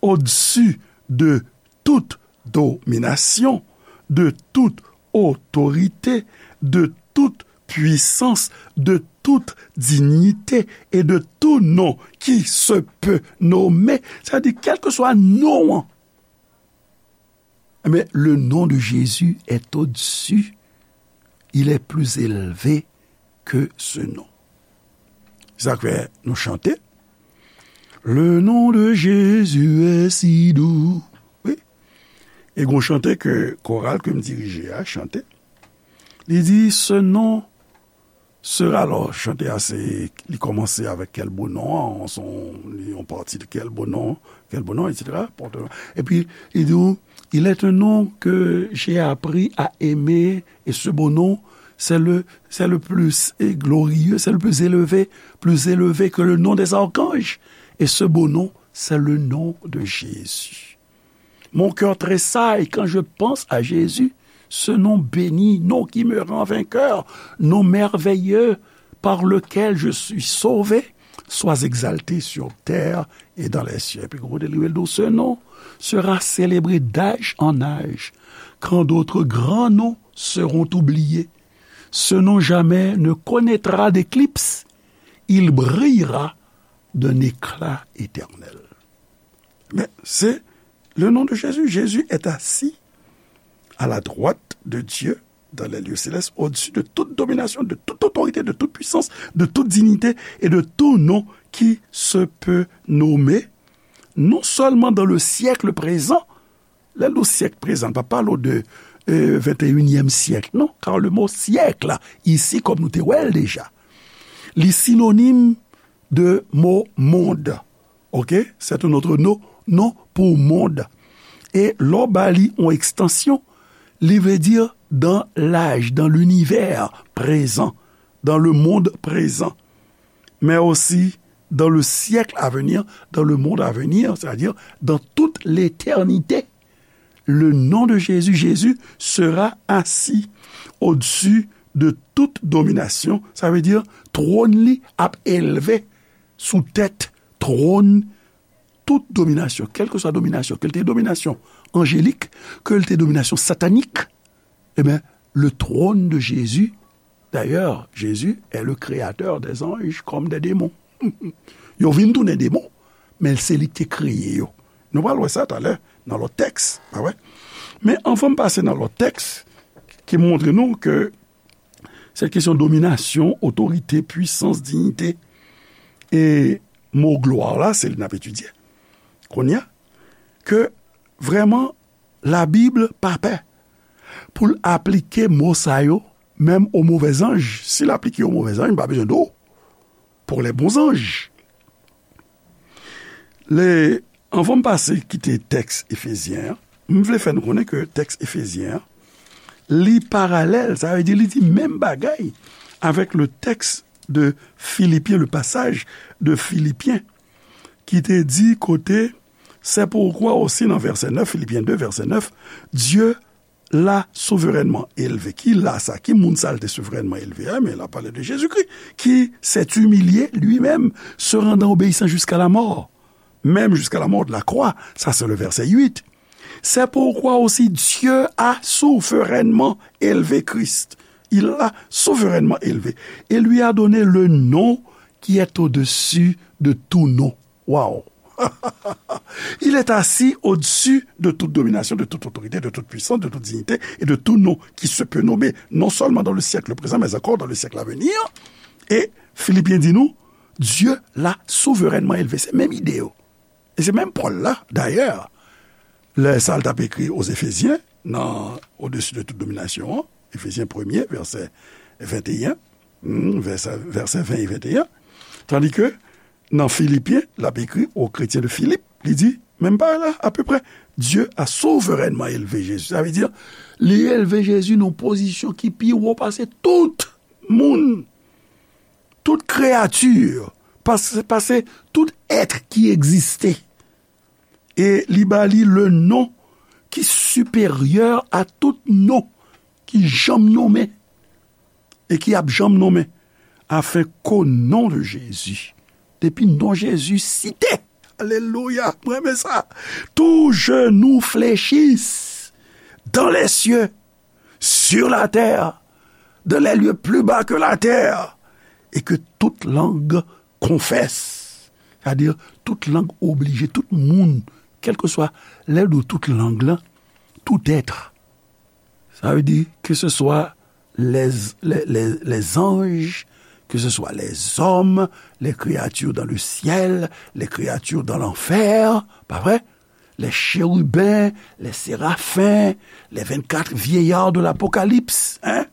au-dessus de toute domination, de toute autorité, de toute puissance, de toute dignité et de tout nom qui se peut nommer. Sa vle di, kèlkeswa non an. Mais le nom de Jésus est au-dessus. Il est plus élevé que ce nom. Sa k fè nou chante, Le nom de Jésus est si doux. Wi. E gon chante ke koral ke m dirije a chante. Li di, Ce nom Sera, alò, chante a, se, li kòmanse avèk Quel beau nom, se yon, li yon pati de Quel beau nom, Quel beau nom, et cetera. Epi, li di w, il est un nom que j'ai appris à aimer, et ce beau nom, c'est le, c'est le plus glorieux, c'est le plus élevé, plus élevé que le nom des archanges. Et ce beau nom, c'est le nom de Jésus. Mon cœur tressaille quand je pense à Jésus, ce nom béni, nom qui me rend vainqueur, nom merveilleux par lequel je suis sauvé, sois exalté sur terre et dans les cieux. Epi kote li rele, ce nom sera célébré d'âge en âge, quand d'autres grands noms seront oubliés. Ce nom jamais ne connaîtra d'éclipse, il brillera d'un éclat éternel. Mais c'est le nom de Jésus. Jésus est assis à la droite de Dieu dans les lieux célestes, au-dessus de toute domination, de toute autorité, de toute puissance, de toute dignité et de tout nom qui se peut nommer, non seulement dans le siècle présent, lè l di syèk prezan, l pa pale w de, euh, vingt et unième siècle, non, car le mot siècle, ici, kòm nou te wè l deja, li sinonim de mo monde. Ok? C'est un autre nom, nom pour monde. E lè w ba li yon ekstansyon, li vle di dans l'âge, dans l'univers présent, dans le monde présent, mais aussi dans le siècle à venir, dans le monde à venir, c'est-à-dire dans toute l'éternité. Le nom de Jésus, Jésus sera assis au-dessus de toute domination. Sa vle di, twòn li ap elve sou tèt twòn tout dominasyon, kèlkeswa dominasyon, ke l te dominasyon anjelik, ke l te dominasyon satanik. Ebyen, le trône de Jésus, d'ailleurs, Jésus est le créateur des anges comme des démons. Yo vin tounen demon, men se li ki te kreye yo. Nou pral wè sa talè nan lòt tèks, pa vre? Men anvan m pase nan lòt tèks ki montre nou ke sèt kesyon dominasyon, otorite, pwisans, diyite, e mo glwa la, se li n ap etidye kounye a, ke vrèman Labib pa pè pou l aplike mo sa yo, menm o movèzanj. Si l aplike yo movèzanj, m pa bezwen di w pour les bons anges. Le, anvan m pase kite tèks Efezyen an, m vle fè nou konnen ke tèks Efezyen an, li paralèl, sa vle di li di menm bagay avèk le tèks de Filipyen, le pasaj de Filipyen, ki te di kote, c'est pourquoi aussi nan vèsè nèf, Filipyen de, vèsè nèf, Dieu l'a souverainement élevé. Ki la sa? Ki moun sa l te souverènman elve a? Men l ap pale de Jezikri, qui s'est humilié lui-même, se rendant obéissant jusqu'à la mort, même jusqu'à la mort de la croix. Ça, c'est le verset huit. C'est pourquoi aussi Dieu a souverainement élevé Christ. Il l'a souverainement élevé et lui a donné le nom qui est au-dessus de tout nom. Waouh! Il est assis au-dessus de toute domination, de toute autorité, de toute puissance, de toute dignité et de tout nom qui se peut nommer, non seulement dans le siècle présent, mais encore dans le siècle à venir. E Filipyen di nou, Dieu l'a souverainement élevé. Se menm ide yo. E se menm Pòl la, dayè, lè sa l t ap ekri aux Éphésiens, nan Au-dessus de toute domination an, Efezyen premye, vèsè venteyen, hmm, vèsè, vèsè ven e venteyen, tandi ke nan Filipyen, l ap ekri aux chrétiens de Philippe, li di, menm bagay la, apeprè, Dieu a souverainement élevé Jésus. Sa vle di, li elve Jezi nan yon pozisyon ki pi wo pase tout moun, tout kreyati, pase, pase tout èt ki egziste. E li ba li le non ki siperyè a tout non ki janm nonmen e ki ap janm nonmen, afin qu'au nom de Jésus, depi non Jezi site, alelouya, mwen renmen sa, tout genou fléchisse dans les cieux, sur la terre, dans les lieux plus bas que la terre, et que toute langue confesse. Sètadi, tout lang oblije, tout moun, kèlkeswa, lè l di tout lang lan, tout être. Sa vle di, ke se swa les, les, les, les anges, que ce soit les hommes, les créatures dans le ciel, les créatures dans l'enfer, pa vre? Les chérubins, les séraphins, les vingt-quatre vieillards de l'Apocalypse, hein?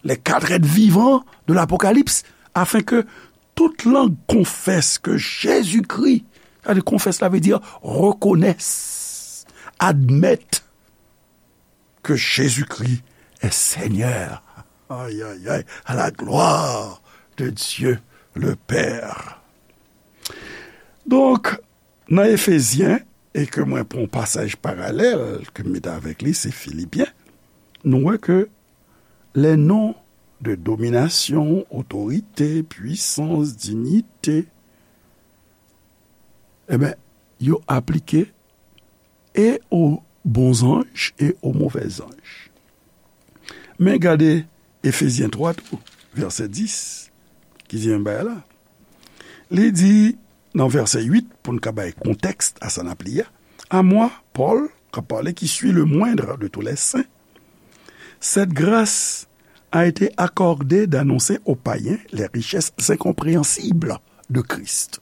les quatre êtres vivants de l'Apocalypse, afin que toute langue confesse que Jésus-Christ, sa vle di confesse la vle di reconnaisse, admette que Jésus-Christ est Seigneur. Aïe, aïe, aïe, à la gloire de Dieu le Père. Donk, nan Efezyen, e ke mwen pran yon pasaj paralèl ke m mete avèk li, se Filipyen, nou wè ke les noms de domination, autorité, puissance, dignité, e ben, yo aplike e o bon zanj e o movè zanj. Men gade Efezyen twa tou, vèsè dis, ki di menm bagay la. Li di nan vèsè uit, pou n ka bay kontèks a sa n ap li a, à moi, Paul, k ap pale, qui suis le moindre de tous les saints, cette grâce a été accordée d'annoncer aux païens les richesses incompréhensibles de Christ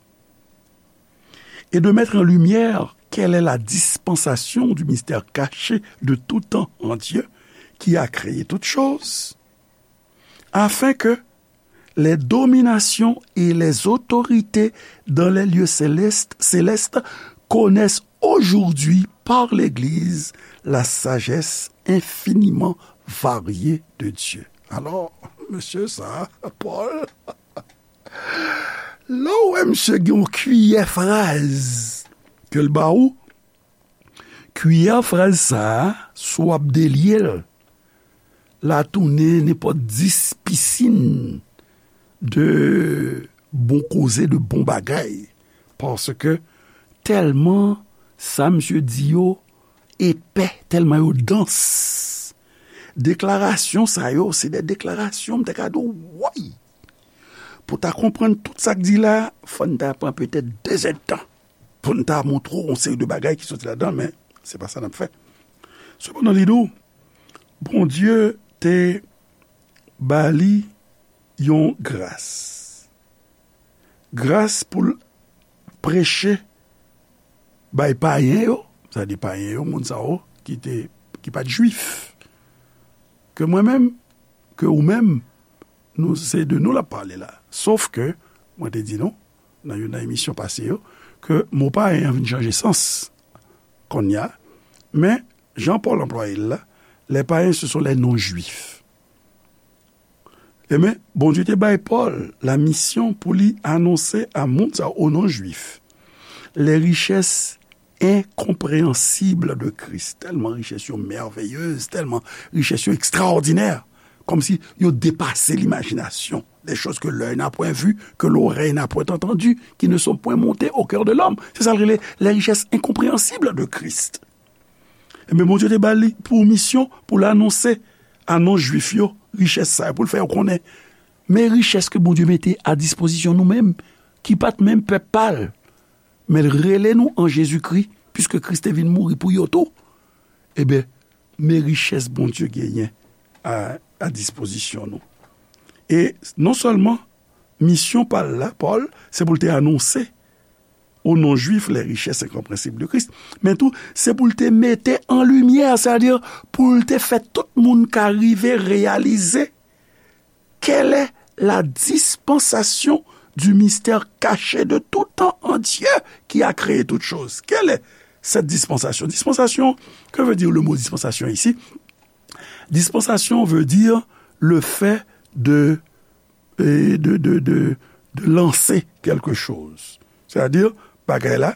et de mettre en lumière quelle est la dispensation du mystère caché de tout temps en Dieu, qui a créé toutes choses, afin que les dominations et les autorités dans les lieux célestes, célestes connaissent aujourd'hui par l'Église la sagesse infiniment variée de Dieu. Alò, mesye sa, Pòl, lè w wè misye gen yon kiyè fraz ke l ba ou, kiyè fraz sa a, si w ap delye l, l a tounen nenpòt dis pisin de bon koze, de bon bagay. Paske tèlman sa misye di yo epè, tèlman yo dans. Deklarasyon sa yo, se de deklarasyon, m te ka di w, woy! Pou w ta konprann tout sa k di la, fò n ta pran petèt de zèdtan pou n ta montre w yon seri de bagay ki soti ladan, men se pa sa n ap fè. Sepandan, li di w, Bondye te ba li yon gras. Gras pou l preche bay payen yo, sa di payen yo, moun sa yo ki te, ki pa t jwif. Ke mwen menm, ke ou menm, nou, se de nou l ap pale la. Sof ke, mwen te di nou, nan youn nan emisyon pase yo, ke mo payen an vin chanje sans kounye a, men jan Pòl anplwaye l la, les païens, ce sont les non-juifs. Ebyen, Bondye te bay Pòl la misyon pou li anonse a moun sa yo, o non jwif, les richesses incompréhensibles de Christ. Tèlman richès yo mèveyez, tèlman richès yo ekstraòdinè, kòmsi yo depase limajinasyon. Des choses que l'œil n'a point vues, que l'oreille n'a point entendues, qui ne sont point montées au cœur de l'homme. Se sa l rele les richesses incompréhensibles de Christ. Ebyen, Bondye te ba li pou misyon pou l anonse a non jwif yo richès sa yo, pou l fè yo konnen. Men richès ke Bondye mete a dispozisyon nou menm, ki pa t menm pèp pa l, men l rele nou an Jezikri, piske Kris te vin mouri pou yo tou. Ebyen, men richès Bondye genyen a, a dispozisyon nou. E non sèlman misyon pa l la, Pòl, se pou l te anonse o non jwif les richesses incompréhensibles de Christ, men tou, se pou l te mete an limyè, sètadi pou l te fè tout moun ka rive reyalize quelle est la dispensation du mystère caché de tout temps en Dieu qui a créé toutes choses. Quelle est cette dispensation? Dispensation, que veut dire le mot dispensation ici? Dispensation veut dire le fait de, de, de, de, de lancer quelque chose. Sètadi, bagay la,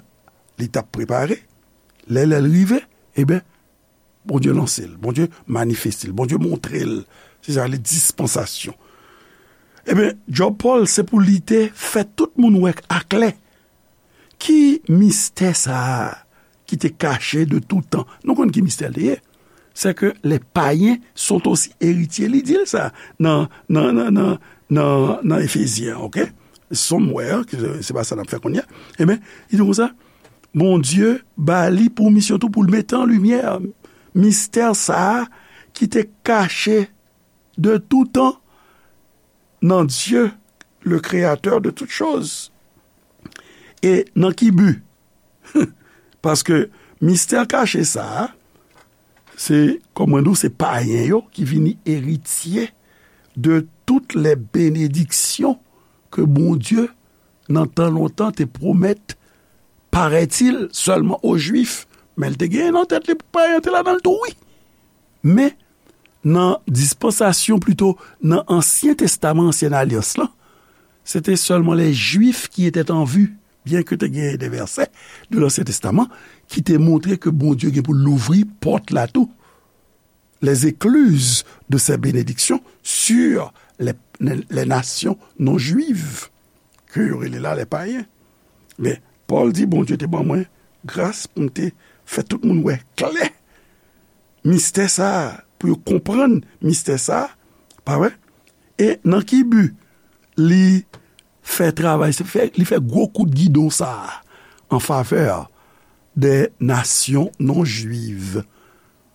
li t ap prepare, lè, lè l rive, ebyen, Bondye lanse l, Bondye manifeste l, Bondye montre l. Se sa, le dispansasyon. Ebyen, djòb Pòl, se pou li te fè tout moun wè aklè ki mistè sa a ki te kache de tout tan. Nou konn ki mistè l te ye. C'est que les païens sont aussi héritiers. Li di l sa nan, nan, nan, nan, nan, nan Efezyen, oke? Somewhere, ke se, se pa sa n ap fè kounye a. Ebyen, li di konsa, Bondye ba li pou misyon tou pou l mete an limyè mistè sa a ki te kache de tout tan nan Dye, le créateur de toutes choses. E nan ki bi? Paske mistè kache sa a, se, kòm mwen di w, se payen yo ki vini eritye de toutes les bénédictions ke Bondye, nan tan lontan, te pwomèt, paraît-il, sèlman o Jwif, men l te gen nan tèt li pou payen te ladan l tou, wi. Men, nan dispansasyon, plito, nan Ansyen Testaman, Ansyen Alyans lan, se te sèlman les Juifs qui étaient en vue, byen ke te gen de vèsè de Lansyen Testaman ki te montre ke Bondye gen pou l louvri pòt la tou, les écluses de ses bénédictions sur les, les, les nations non juives, ke yo rele la les païens. Men, Pòl di, Bondye te ban mwen gras pou m te fè tout moun wè klè mistè sa a, pou yo konprann mistè sa a, pa vre? E nan ki bi li fè travay, se fè, li fè gwo kout gidon sa a an favè des nations non juives,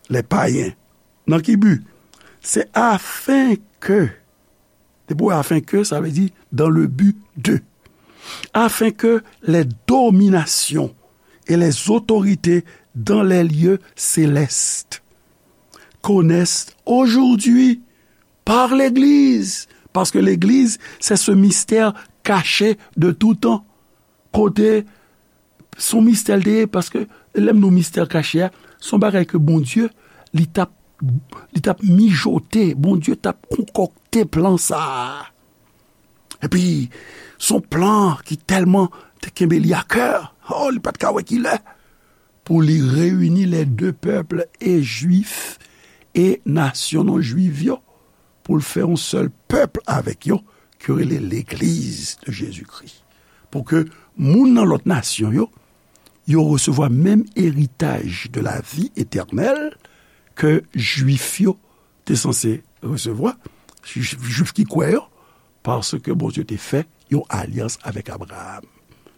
les païens. Nan ki bi? C'est afin que, depi afin que, sa vle di dans le but de. Afin que les dominations et les autorités dans les lieux célestes connaissent aujourd'hui par l'Église. Parce que l'Église, c'est ce mystère caché de tout temps. Kote, se yon mistè l te ye, paske lè m di w mistè kache a, se yon bagay ke Bondye, li t ap, li t ap mijote, Bondye t ap konkòkte plan sa a. Epi, se yon plan ki tèlman te kenbe li a kè, oh, li pa t ka wè ki lè, pou li reyini les deux peuples, e Jwif, e nasyon non jwiv yo, pou l fè yon sèl pèp avèk yo, ki rele Legliz de Jezikri. Pou ke moun nan lòt nasyon yo, yo resevwa menm eritaj de la vi etènèl ke Jwif yo te sanse resevwa, Jwif, Jwif ki kwè yo, paske Bondye te fè yon alyans avèk Abraram.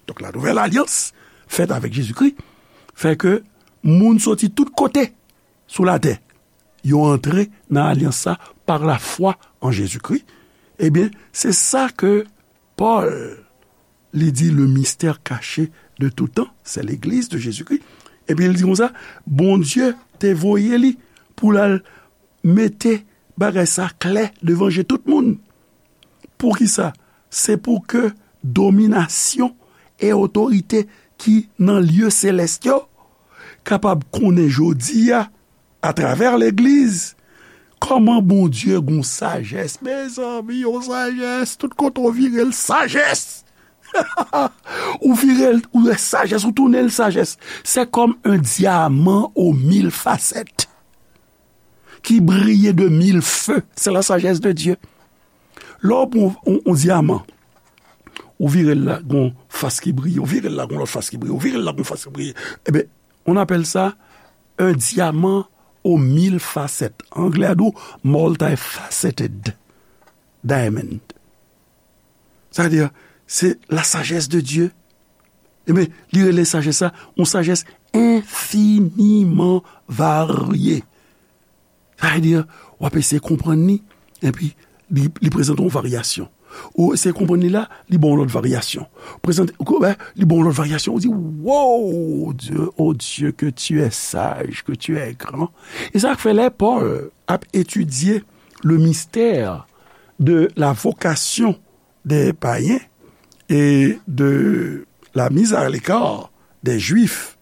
Donk, la nouvèl alyans fèt avèk Jezikri fè ke moun soti tout kote sou latè, yo antre nan alyans sa pa lafwa an Jezikri. Ebyen, se sa ke Pòl, li di, le mystère caché de tout temps, c'est l'Église de Jésus-Christ. Epi li di konsa, Bondye te voye li pou l al mete bagay sa klè devan je tout moun. Poukisa? Se pou ke dominasyon e otorite ki nan lye selès yo kapab konnen jodi a, atravè legliz, kòman Bondye gon sajès. Mezanmi, yon sajès, tout kote w vire l, sajès! Ou vire l, ou wè sajès, ou tounen l sajès. C'est comme un diamant aux mille facettes qui brille de mille feux. C'est la sagesse de Dieu. Lè w pran yon, yon dyaman, ou vire l la, gon fas ki briye, ou vire l la, gon lòt fas ki briye, ou vire l la, gon fas ki briye. Ebyen, on appelle ça un diamant aux mille facettes. Anglè a di w multifaceted diamond. Sa vle di, se la sagesse de Dieu. Ebyen, li rele sajès sa, yon sajès enfiniman varye. Sa vle di, w ap eseye konprann li, epi li, li prezante yon varyasyon. Ou eseye konprann li la, li ba w yon lòt varyasyon. Prezante, ou wè, li ba w yon lòt varyasyon. Ou di, wow, Dieu, oh Dieu, que tu es sage, que tu es grand. E sa k fè lè Pòl ap etidye le mystère de la vocation des païens et de la mise à l'écart des Juifs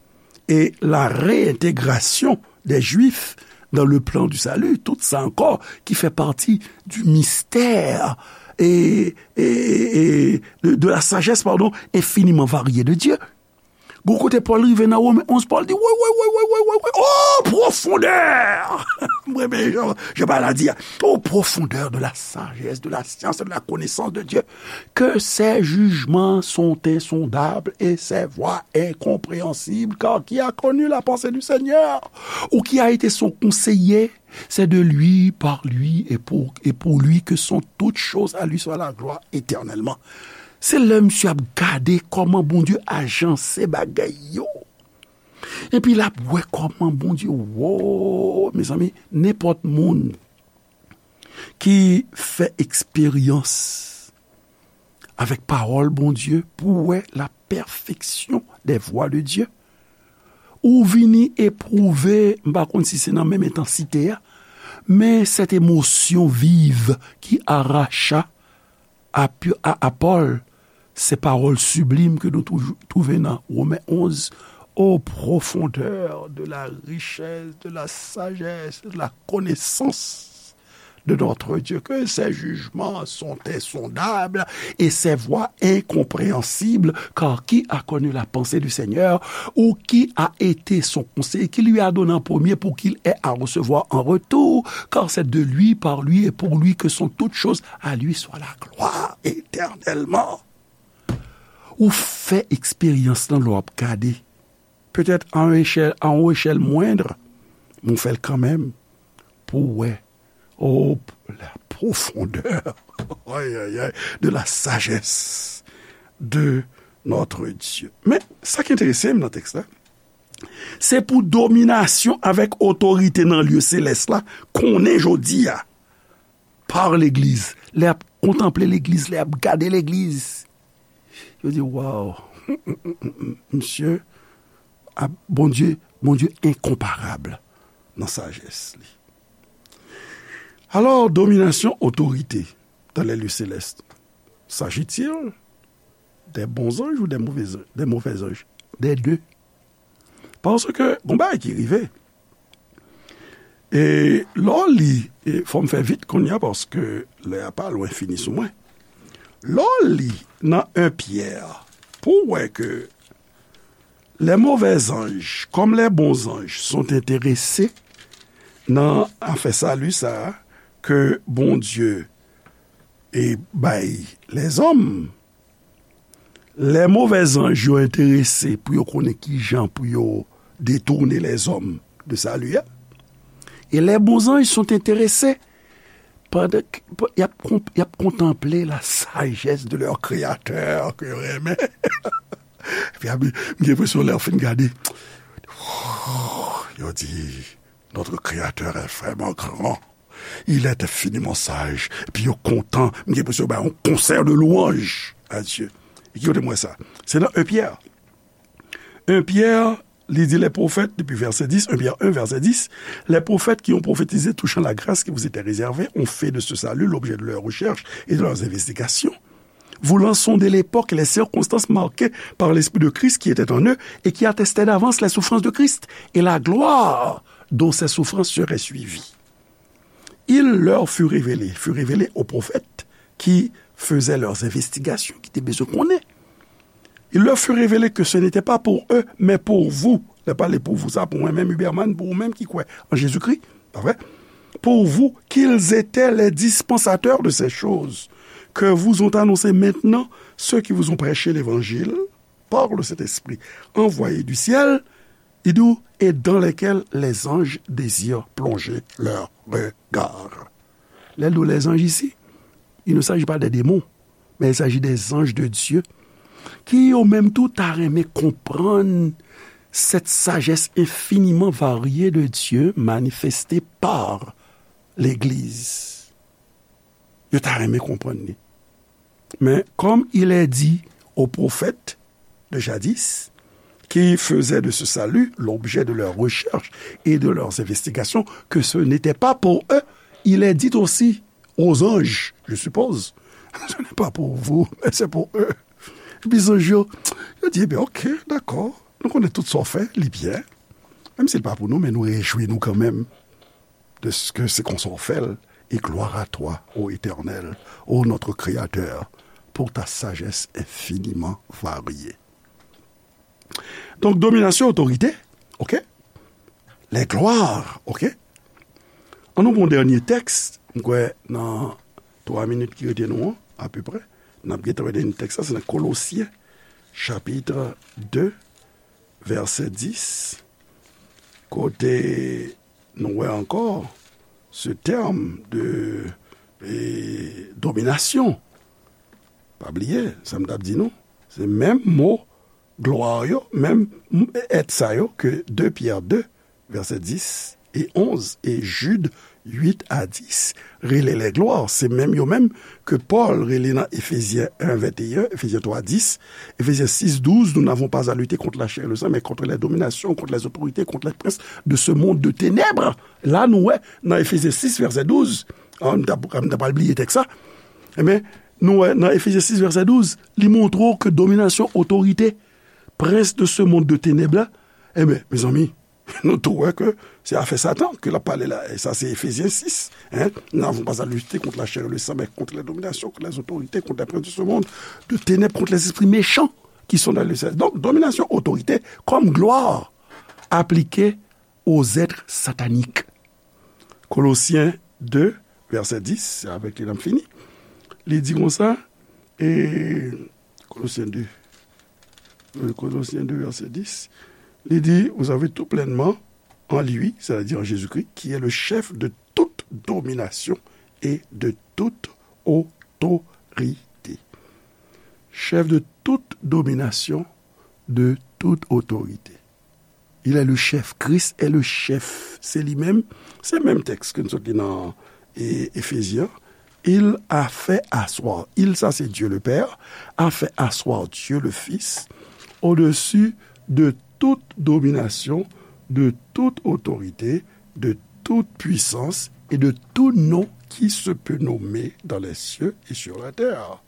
et la réintégration des Juifs dans le plan du salut, tout sa ankò ki fè pati du mystère et, et, et de, de la sagesse, pardon, infiniment variée de Dieu. Gon kote Pòl rive nan Women onz, Pòl di, woy, woy, woy, woy, woy, woy, woy, oh, profondeur! Mwen, men, jan, jan Pòl a di a, oh, profondeur de la sagesse, de la science, de la connaissance de Dieu, que ses jugements sont insondables et ses voies incompréhensibles, car qui a connu la pensée du Seigneur, ou qui a été son conseiller? C'est de lui, par lui et pour, et pour lui que sont toutes choses, à lui soit la gloire éternellement. Se lè misye ap gade kòman Bondye ajanse bagay yo. Epi l ap wè kòman Bondye, wo, mezanmi, nenpòt moun ki fè eksperyans avèk pawòl Bondye pou wè la perfection des voies de Dieu. Ou vini epwouve, m pa konn si se nan menm entansite a, Mais cette émotion vive qui arracha à, à, à Paul ces paroles sublimes que nous trou- trouvons dans Romains onze, ô profondeur de la richesse, de la sagesse, de la connaissance de notre Dieu, que ses jugements sont insondables et ses voies incompréhensibles, car qui a connu la pensée du Seigneur, ou qui a été son conseiller, qui lui a donné en premier pour qu'il ait à recevoir en retour, car c'est de lui, par lui et pour lui que sont toutes choses, à lui soit la gloire éternellement. Ou fè eksperyans lan lè w ap gade. Petèt a yon echèl, a yon echèl mwendr, men w fè l kanmenm pou w wè. Oh, la profondeur, ay, ay, ay, de la sagesse de notre Dieu. Men, sa ki enterese m nan tèks la, se pou dominasyon avèk otorite nan lye selès la, konnen jodi a, par legliz. Lè y ap kontanple legliz, lè y ap gade legliz, yo di, waw, misye, a, Bondye, Bondye enkonparab nan sajès li. Alors, domination, autorité dans les lieux célestes. S'agit-il des bons anges ou des mauvais, des mauvais anges? Des deux. Paske gon bagay ki rive. E lè w li, e fò m fè vit kounye a paske lè a pa lwen fini sou mwen. Lè w li nan en Pyè, pou w wè ke les mauvais anges, comme les bons anges, sont intéressés nan afè sali sa a ke Bondye e bay lèzòm, les mauvais anges yo enterese pou yo konnen ki jan pou yo detounen lèzòm de sali a. E les bons anges sont intéressés pandan k- pa- y ap, konp- y ap kontanple la sajès de leur créateur ke yo renmen. Epi ap- m gen enpresyon lè yo fin gade, yo di, notre créateur est vraiment grand. Il est infiniment sage. Epi yo kontan, m gen enpresyon yo bay yon konsè de louanj à Dieu. E ki kote m wè sa? Se nan en Pyè. En Pyè, li di les prophètes, depi vèsè dis, en Pyè en, vèsè dis, les prophètes qui ont prophétisé touchant la grâce qui vous était réservée ont fait de ce salut l'objet de leurs recherches et de leurs investigations, voulant sonder l'époque et les circonstances marquées par l'Esprit de Christ qui était en eux et qui attestait d'avance les souffrances de Christ et la gloire dont ces souffrances seraient suivies. Il leur fut révélé, fut révélé aux prophètes qui faisaient leurs investigations, ki te bezwen konnen. Il leur fut révélé que ce n'était pas pour eux, mais pour vous. Lè pale pour vous, sa pou mwen menm, Huberman, pou ou menm ki kwè an Jezikri, pa vre? Pour vous, qu'ils étaient les dispensateurs de ces choses que vous ont annoncées maintenant ceux qui vous ont prêché l'évangile par le Saint-Esprit envoyé du ciel, il dit, et dans lesquels les anges désirent plonger leur regard. Lè l di w lèzanj isi, il ne s'agit pas des démons, mais il s'agit des anges de Dieu, ki yo menm tou ta renmen konprann cette sagesse infiniment variée de Dieu manifestée par l'Église. Yo ta renmen konprann li. Mais comme il est dit aux prophètes de jadis, qui faisaient de ce salut l'objet de leurs recherches et de leurs investigations, que ce n'était pas pour eux, il est dit aussi aux anges, je suppose, ce n'est pas pour vous, mais c'est pour eux. Epi zanj yo, yo di, ebyen, ok, dakò, nou konnen tout sa w fè, li byen. Menm si l pa pou nou, men nou rejwi nou kanmenm de ce que c'est qu'on s'en fait, et gloire à toi, ô Éternel, ô notre Créateur, pour ta sagesse infiniment variée. Donk, dominasyon, otorite, ok? Les gloires, ok? An nou pran dènye tèks, m kwè nan twa minit ki rete nou an, apeprè, n ap gentan wè dènye tèks la, se nan Kolosyen, chapit de, vèsè dis, kote nou wè ankò se tèm de, e, dominasyon. Pa bliye, sa m t ap di nou, se menm mo glwa yo, menm èt sa yo ke de Pyè de, vèsè dis, et onze, et Jude huit à dix, rele les gloires, se menm yo menm ke Pòl rele nan Efezyen en venteyen, Efezyen twa dis, Efezyen sis douz, nous n'avons pas à lutter contre la chair et le sang, mais contre les dominations, contre les autorités, contre les princes de ce monde de ténèbres. La, nou wè, nan Efezyen sis, vèsè douz, ah, m ta, m ta pral bliye tèks sa, enben, nou wè, nan Efezyen sis, vèsè douz, li montre w ke dominasyon, otorite, prince de ce monde de ténèbres la, enben, mezanmi, nou tou wè ke se afè Satan ke l ap pale la. E sa, se Efezyen sis. Hein? Nous n'avons pas à lutter contre la chair et le sang, mais contre les dominations, contre les autorités, contre les princes de ce monde de ténèbres, contre les esprits méchants qui sont dans le ciel. Donk, dominasyon, otorite, kòm glwa aplike aux êtres sataniques. Kolosyen de, vèsè dis, se avèk li n ap fini. Li di konsa, e, Kolosyen de, wi, Kolosyen de, vèsè dis, li di, vous avez tout pleinement en lui, c'est-à-dire en Jésus-Christ, qui est le chef de toute domination et de toute autorité. Chef de toute domination, de toute autorité. Il est le chef. Christ est le chef. Se li menm. Se menm tèks ke n sot li nan, e, Efezyen. Il a fait asseoir. Il, sa se Dieu le Père, a fait asseoir Dieu le Fils au-dessus de toute domination, de toute autorité, de toute puissance et de tout nom qui se peut nommer dans les cieux et sur la terre.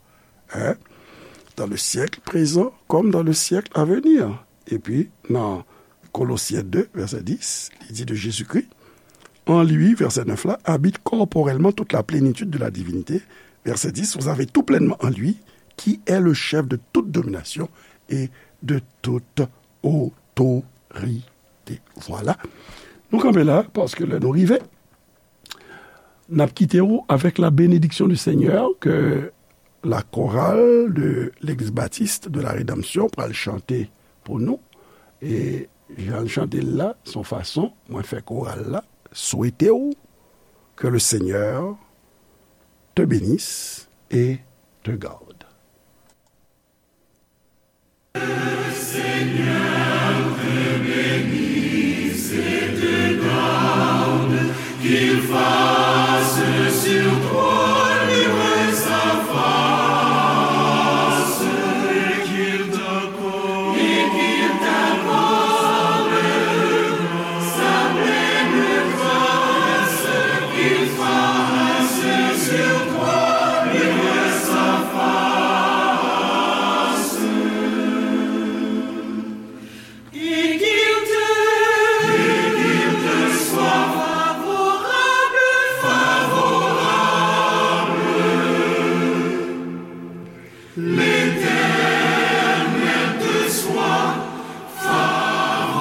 Hein? Dans le siècle présent comme dans le siècle à venir. Epi, nan Kolosyen de, vèsè dis, li di de Jezikri, en lui, vèsè nèf la, habite corporellement toute la plénitude de la divinité. Vèsè dis, vous avez tout pleinement en lui, qui est le chef de toute domination et de toute autorité. Voilà. Nou kanpe la, paske lè nou rive, n ap kite w avec la bénédiction du Seigneur que la chorale de l'Église Baptiste de la Rédemption pral chante pou nou. E jan l chante l la, se yon fason mwen fè koral la swete w que le Seigneur te bénisse et te garde. Qu'il fasse sur toi luire sa face, et qu'il t'accorde, et qu'il t'accorde sa pleine grâce, qu'il fasse sur toi luire sa face. Et qu'il te, et qu'il te soit favorable, favorable. L'Éternel te soit favorable.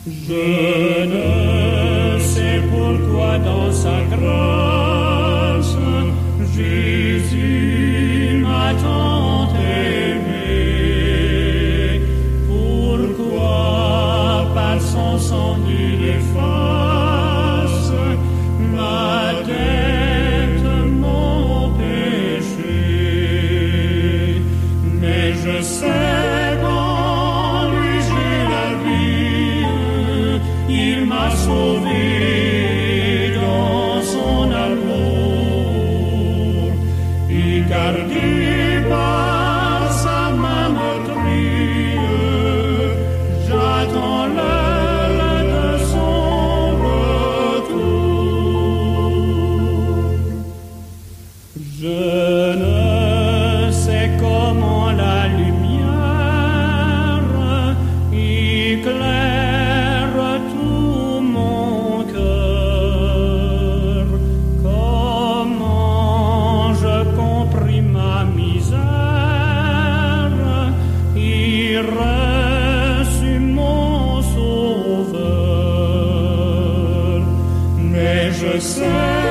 Je ne sais pourquoi dans sa grâce, Jésus m'a tant aimé. Pourquoi par son sang il efface ma dette, mon péché. Mais je sais qu'en lui j'ai la vie, il m'a sauvé dans son amour, et gardé par sa main meurtrie, j'attends l'heure de son retour. Je ne sais comment la lumière Je sais